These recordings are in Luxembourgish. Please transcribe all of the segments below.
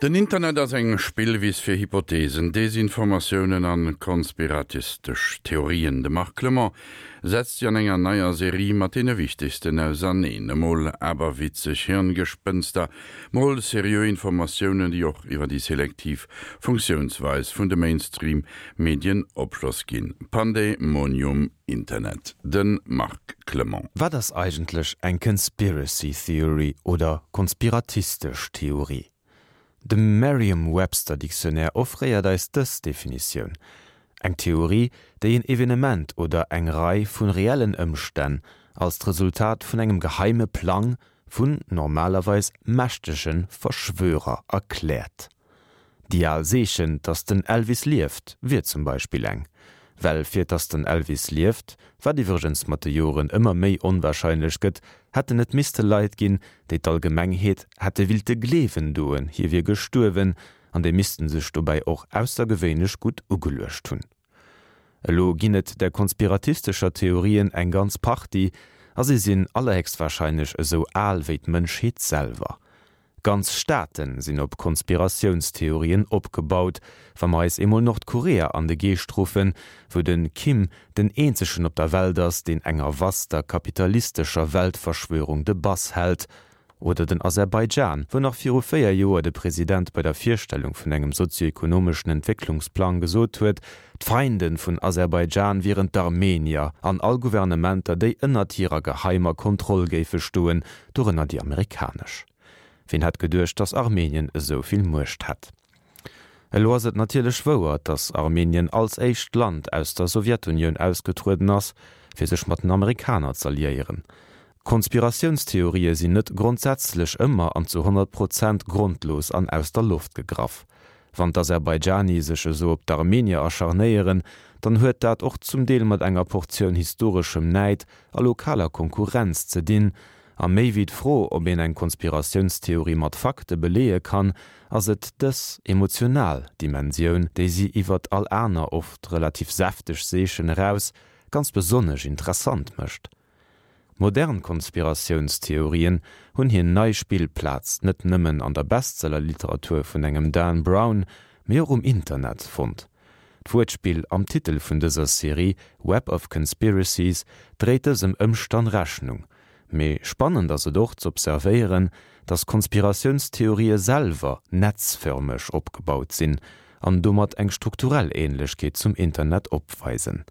Den Internet ass eng Spillwiss fir Hypothesen, Desinformatiounen an konspiratistesch Theorien. De Marc Clement setzt si an enger neier Serie mat deene wichtegsten auserneen. Emol aberwitzeg Hirngespënster, mol seriö Informatiounen, déi och iwwer déi selektiv Funktiounsweis vun de Mainstream-Medien Opschloss ginn. Pandemonium Internet. De Marc Clement. Wat ass eigentlech eng Conspiracy Theory oder konspiratistesch Theorie? De Merriam-Webster Dictionnaire offréiert eis dës Definitioun, Eng Theorie, déi en Evenement oder eng Rei vu reellen Ëmstänn als d'Resultat vun engem geheime Plang vun normalerweis mächtege Verschwörer erkläert. Déi al Seechen, dass den Elvis lieft, wier zum Beispill eng. Well fir dass den Elvis lieft, wat iwwregens mat de Joren ëmmer méi onwahrscheinlech gëtt, hätten et misste Leit ginn, déi d'Allgemengheet hätte willte gleewen doen, hie wier gestuerwen, an déi missten sech dobäi och aussergewéinlech gutt ugeluecht hunn. Elo ginn et där konspiratistescher Theorien eng ganz Partie, a si sinn allerhéchstwahrscheinlech esou al wéi d'Mënschheet selwer. Ganz Staate sinn op Konspiratiounstheorien opgebaut. Wa mer eis eemol Nordkorea an de Geescht ruffen, wou de Kim den eenzegen op der Welt ass, deen enger vaster kapitalistescher Weltverschwörung de Bass hält. Oder den Aserbaidschan, wou nach viru 4 Joer de President bei der Virstellung vun engem sozioekonomeschen Entwécklungsplang gesot huet, d'Feinde vun Aserbaidschan wieren d'Armenier an all Gouvernementer, déi ënnert hirer geheimer Kontroll géife stoen, dorënner déi amerikanesch. Ween hätt geduecht, dass Armenien esou vill Muecht hätt? Elo ass et natierlech wouer, dass Armenien als éischt Land aus der Sowjetunioun ausgetrueden ass, fir sech mat den Amerikaner z'alliéieren. Konspiratiounstheorië sinn net grondsätzlech ëmmer an zu 100 Prozent grondlos an aus der Loft gegraff. Wann d'Aserbaidschani sech esou op d'Armenier acharnéieren, dann huet dat och zum Deel mat enger Portioun historeschem Näid a lokaler Konkurrenz ze dinn, A méi wéi d'Fro, ob een eng Konspiratiounstheorie mat Fakte beleeë kann, ass et dës emotional Dimensioun, déi si iwwert all aner, oft relativ säfteg Seechen eraus ganz besonnesch interessant mécht. Modern Konspiratiounstheorien hunn hir nei Spillplaz net nëmmen an der Bestsellerliteratur vun engem Dan Brown, mee och um Internet fonnt. D'Wuertspill am Titel vun dëser Serie Web of Conspiracies dréit dësem Ëmstann Rechnung. Mee spannend ass et och z'observéieren, datt Konspiratiounstheorië selwer netzförmeg opgebaut sinn an domat eng strukturell Ähnlechkeet zum Internet opweisen.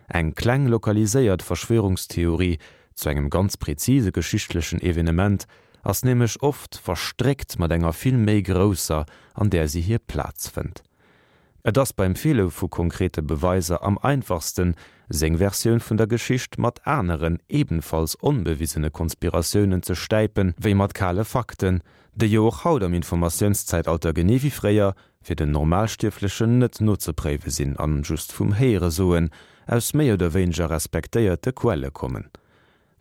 Eng kleng lokaliséiert Verschwörungstheorie zu engem ganz präzise geschichtlechen Evenement ass nämlech oft verstréckt mat enger vill méi grousser, an där si hir Plaz fënnt. Et ass beim Feele vu konkrete Beweiser am einfachsten, seng Versioun vun der Geschicht mat aneren, ebenfalls onbewisene Konspiratiounen ze stäipen, wéi mat kale Fakten, déi jo och haut am Informatiounszäitalter genee wéi fréier fir den Normalstierflechen net nozepréiwe sinn an just vum Héieresoen aus méi oder wéineger respektéierte Quelle kommen.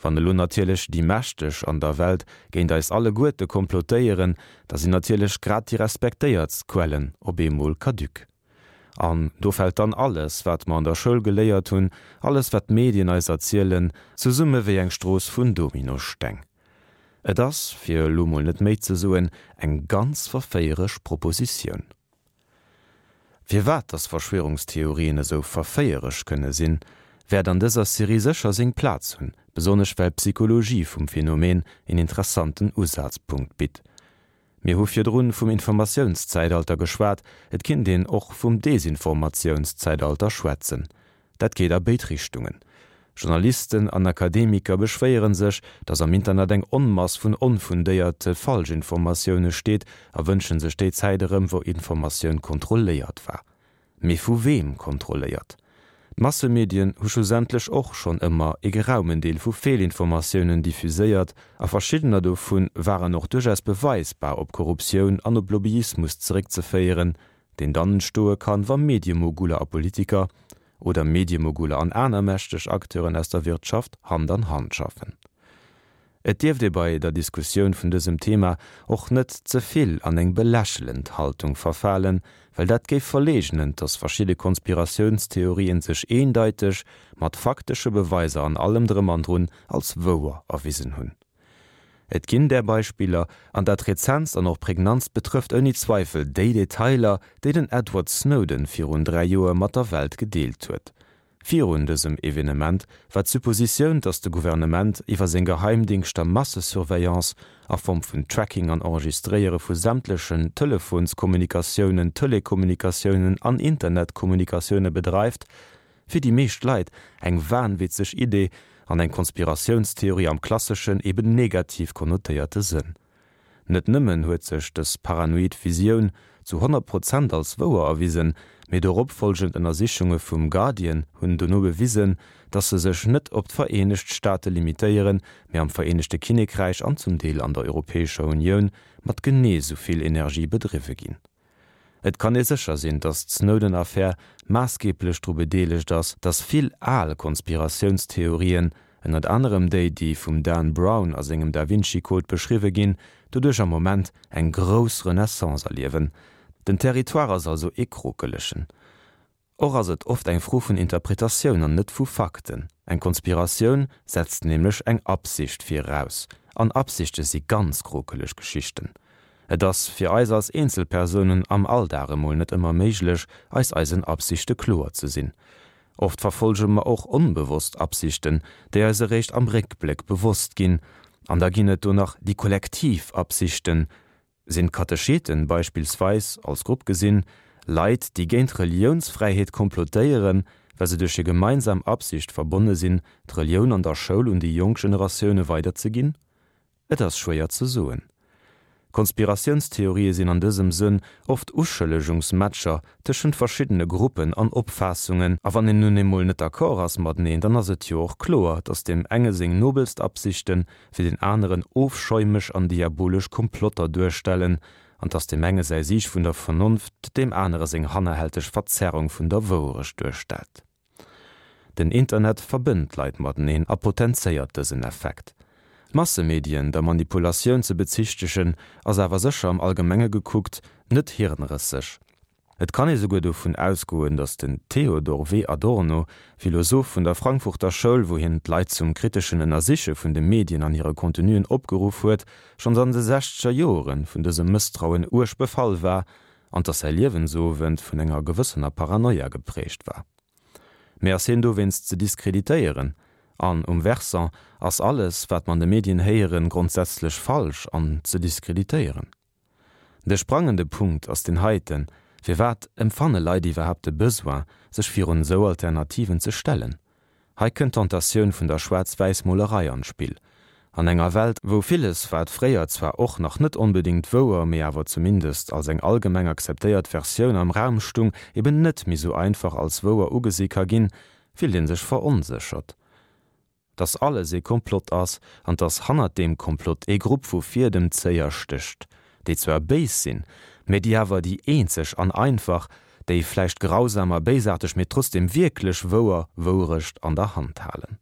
Wann elo natierlech déi Mächteg an der Welt géint eis alleguerte komplotéieren, da sinn natierlech grad déi respektéiertst Quellen op eemol caduc. An do fält dann alles, wat mer an der Schoul geléiert hunn, alles wat d'Medien eis erzielen, zesumme wéi eng Strooss vun Dominosteng. Et ass, fir elo mol net méi ze soen, eng ganz verféieresch Propositioun. Firwat dass Verschwörungstheorien esou verféieresch kënne sinn, wäert an dëser Serie sécher seng Plaz hunn, besonnesch well d'Psychologie vum Phänomen een interessanten Usazpunkt bitt. Mir hu virdrun vum Informatiounszäitalter geschwat, et kinnt een och vum Desinformatiounszäitalter schwätzen. Dat geet a béid Richtungen. Journalisten an Akademiker beschwéiere sech, datt am Internet eng Onmass vun onfundéierte Falschinformatioune steet a wënsche sech déi Zäit erëm, wou Informatioun kontrolléiert war. Mee vu weem kontrolléiert? D'Massemedien hu schlussendlech och schonn ëmmer ee geraumen Deel vu Feelinformatiounen diffuséiert a verschiddener dovu waren och duerchaus beweisbar op Korruptioun an op Lobbyismus zeréckzeféieren, deen dann entstoe kann, wa Mediemoguler a Politiker oder Mediemoguler an aner mächteg Acteuren aus der Wirtschaft Hand an Hand schaffen. Et dierft ee bei der Diskussioun vun dësem Thema och net ze vill an eng belächelend Haltung verfalen, well dat géif verleegnen, dass verschidde Konspiratiounstheorien sech eendeiteg, mat faktesche Beweiser an allem drëm an drun, als wouer erwisen hunn. Et ginn där Beispiller, an dat rezentst an och prägnantst betrëfft ouni Zweifel déi Detailer, déi den Edward Snowden virun 3 Joer mat der Welt gedeelt huet. Virun dësem Evenement war d'Suppositioun, datt de Gouvernement iwwer seng Geheimdingschter Massesurveillance a Form vun Tracking an Enregistréiere vu sämtlechen Telefonskommunikatiounen, Telekommunikatiounen an Internetkommunikatioune bedreift, Fir déi meescht Leit eng wahnwitzeg Idee an eng Konspiratiounstheorie am klasseschen, eben negativ konnotéierte Sënn. Net nëmmen huet sech dës paranoid Visioun zu 100 Prozent als wouer erwisen, mee dorop folgend Ënnersichunge vum Guardian hunn dono bewisen, dass se sech net op d'Vereenegt Staate limitéieren, mee am Vereenegte Kinnekräich an zum Deel an der Europäescher Unioun mat genee sou vill Energie bedriwwe ginn. Et kann ee sécher sinn, datt d'Snowden-Affär maassgeeblech dru bedeelegt ass, datt vill al Konspiratiounstheorien, ënnert anerem déi, déi vum Dan Brown a sengem Da Vinci Code beschriwwe ginn, doduerch am Moment eng grouss Renaissance erliewen. Den Territoire ass also ee krokelegen. Och ass et oft eng Fro vun Interpretatioun an net vu Fakten. Eng Konspiratioun setzt nämlech eng Absicht viraus, an Absichte si ganz krokeleg Geschichten. Et ass fir eis als Eenzelpersounen am Alldag emol net ëmmer méiglech, eis eisen Absichte kloer ze sinn. Oft verfollege mer och onbewosst Absichten, déi eis eréischt am Réckbléck bewosst ginn. An da ginn et do nach déi kollektiv Absichten, Sinn d'Katecheten beispillsweis, als Grupp gesinn, Leit, déi géint d'Reliounsfräiheet komplotéieren, well se duerch hir gemeinsam Absicht verbonne sinn, d'Relioun an der Schoul un déi jonk Generatioune weiderzeginn? Et ass schwéier ze soen. Konspiratiounstheorië sinn an dësem Sënn oft Uschëllegungsmatcher tëschent verschiddene Gruppen an Opfaassungen, a wann een nun emol net d'accord ass mateneen, dann ass et jo och kloer, datt deem enge seng nobelst Absichten fir deen aneren ofschäumeg an diabolesch Komplotter duerstellen, an dass deem enge säi Sieg vun der Vernonft deem anere seng hannerhälteg Verzerrung vun der Wouerecht duerstellt. Den Internet verbënnt d'Leit mateneen a potenzéiert dësen Effekt. D'Massemedien der Manipulatioun ze bezichtegen, ass awer sécher am Allgemenge gekuckt net hirnrësseg. Et kann ee souguer dovun ausgoen, datt den Theodor W. Adorno, Philosoph vun der Frankfurter Schoul, wou hien d'Leit zum kriteschen Ënnersiche vun de Medien an hire Contenuen opgeruff huet, schonns an de sechzeger Joere vun dësem Mësstrauen uerg befall war an datt säi Liewensowend vun enger gewëssener Paranoia geprägt war. Mee ass hien dowéinst ze diskreditéieren? An um Versant, ass alles, wat mer an de Medien héieren, grondsätzlech falsch an ze diskreditéieren? De sprangende Punkt ass deen heiten, Firwat empfanne Leit iwwerhaapt de Besoin, sech virun esou Alternativen ze stellen? Hei kënnt d'Tentatioun vun der Schwaarz-Wäiss-Molerei an d'Spill. An enger Welt, wou villes, wat fréier zwar och nach net onbedéngt wouer, mee awer zumindest als eng allgemeng akzeptéiert Versioun am Raum stung, eben net méi sou einfach als wouer ugesi ka ginn, fillt ee sech veronséchert. Dass alles ee Komplott ass an dass hannert deem Komplott ee Grupp vu Fiedemzéier stécht, déi zwar béis sinn, mä déi awer déi eenzeg an einfach, déi vläicht grausam a béisaarteg, mä trotzdem wierklech wouer Wourecht an der Hand halen.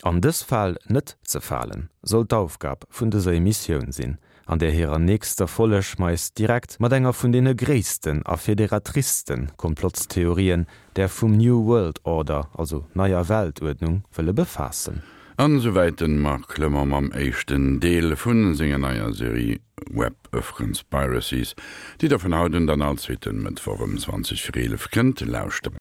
An dës Fal net ze falen, soll d'Aufgab vun dëser Emissioun sinn, an där hirer nächster Folleg mer eis direkt mat enger vun deene gréissten a federatristen Komplottstheorien, där vum New World Order, also Neier Weltuerdnung, wëlle befaassen. An esouwäit den Marc Clement mam éischten Deel vun senger neier Serie Web of Conspiracies, déi der vun haut un dann all zweeten Mëttwoch ëm 20 vir 11 kënnt lauschteren.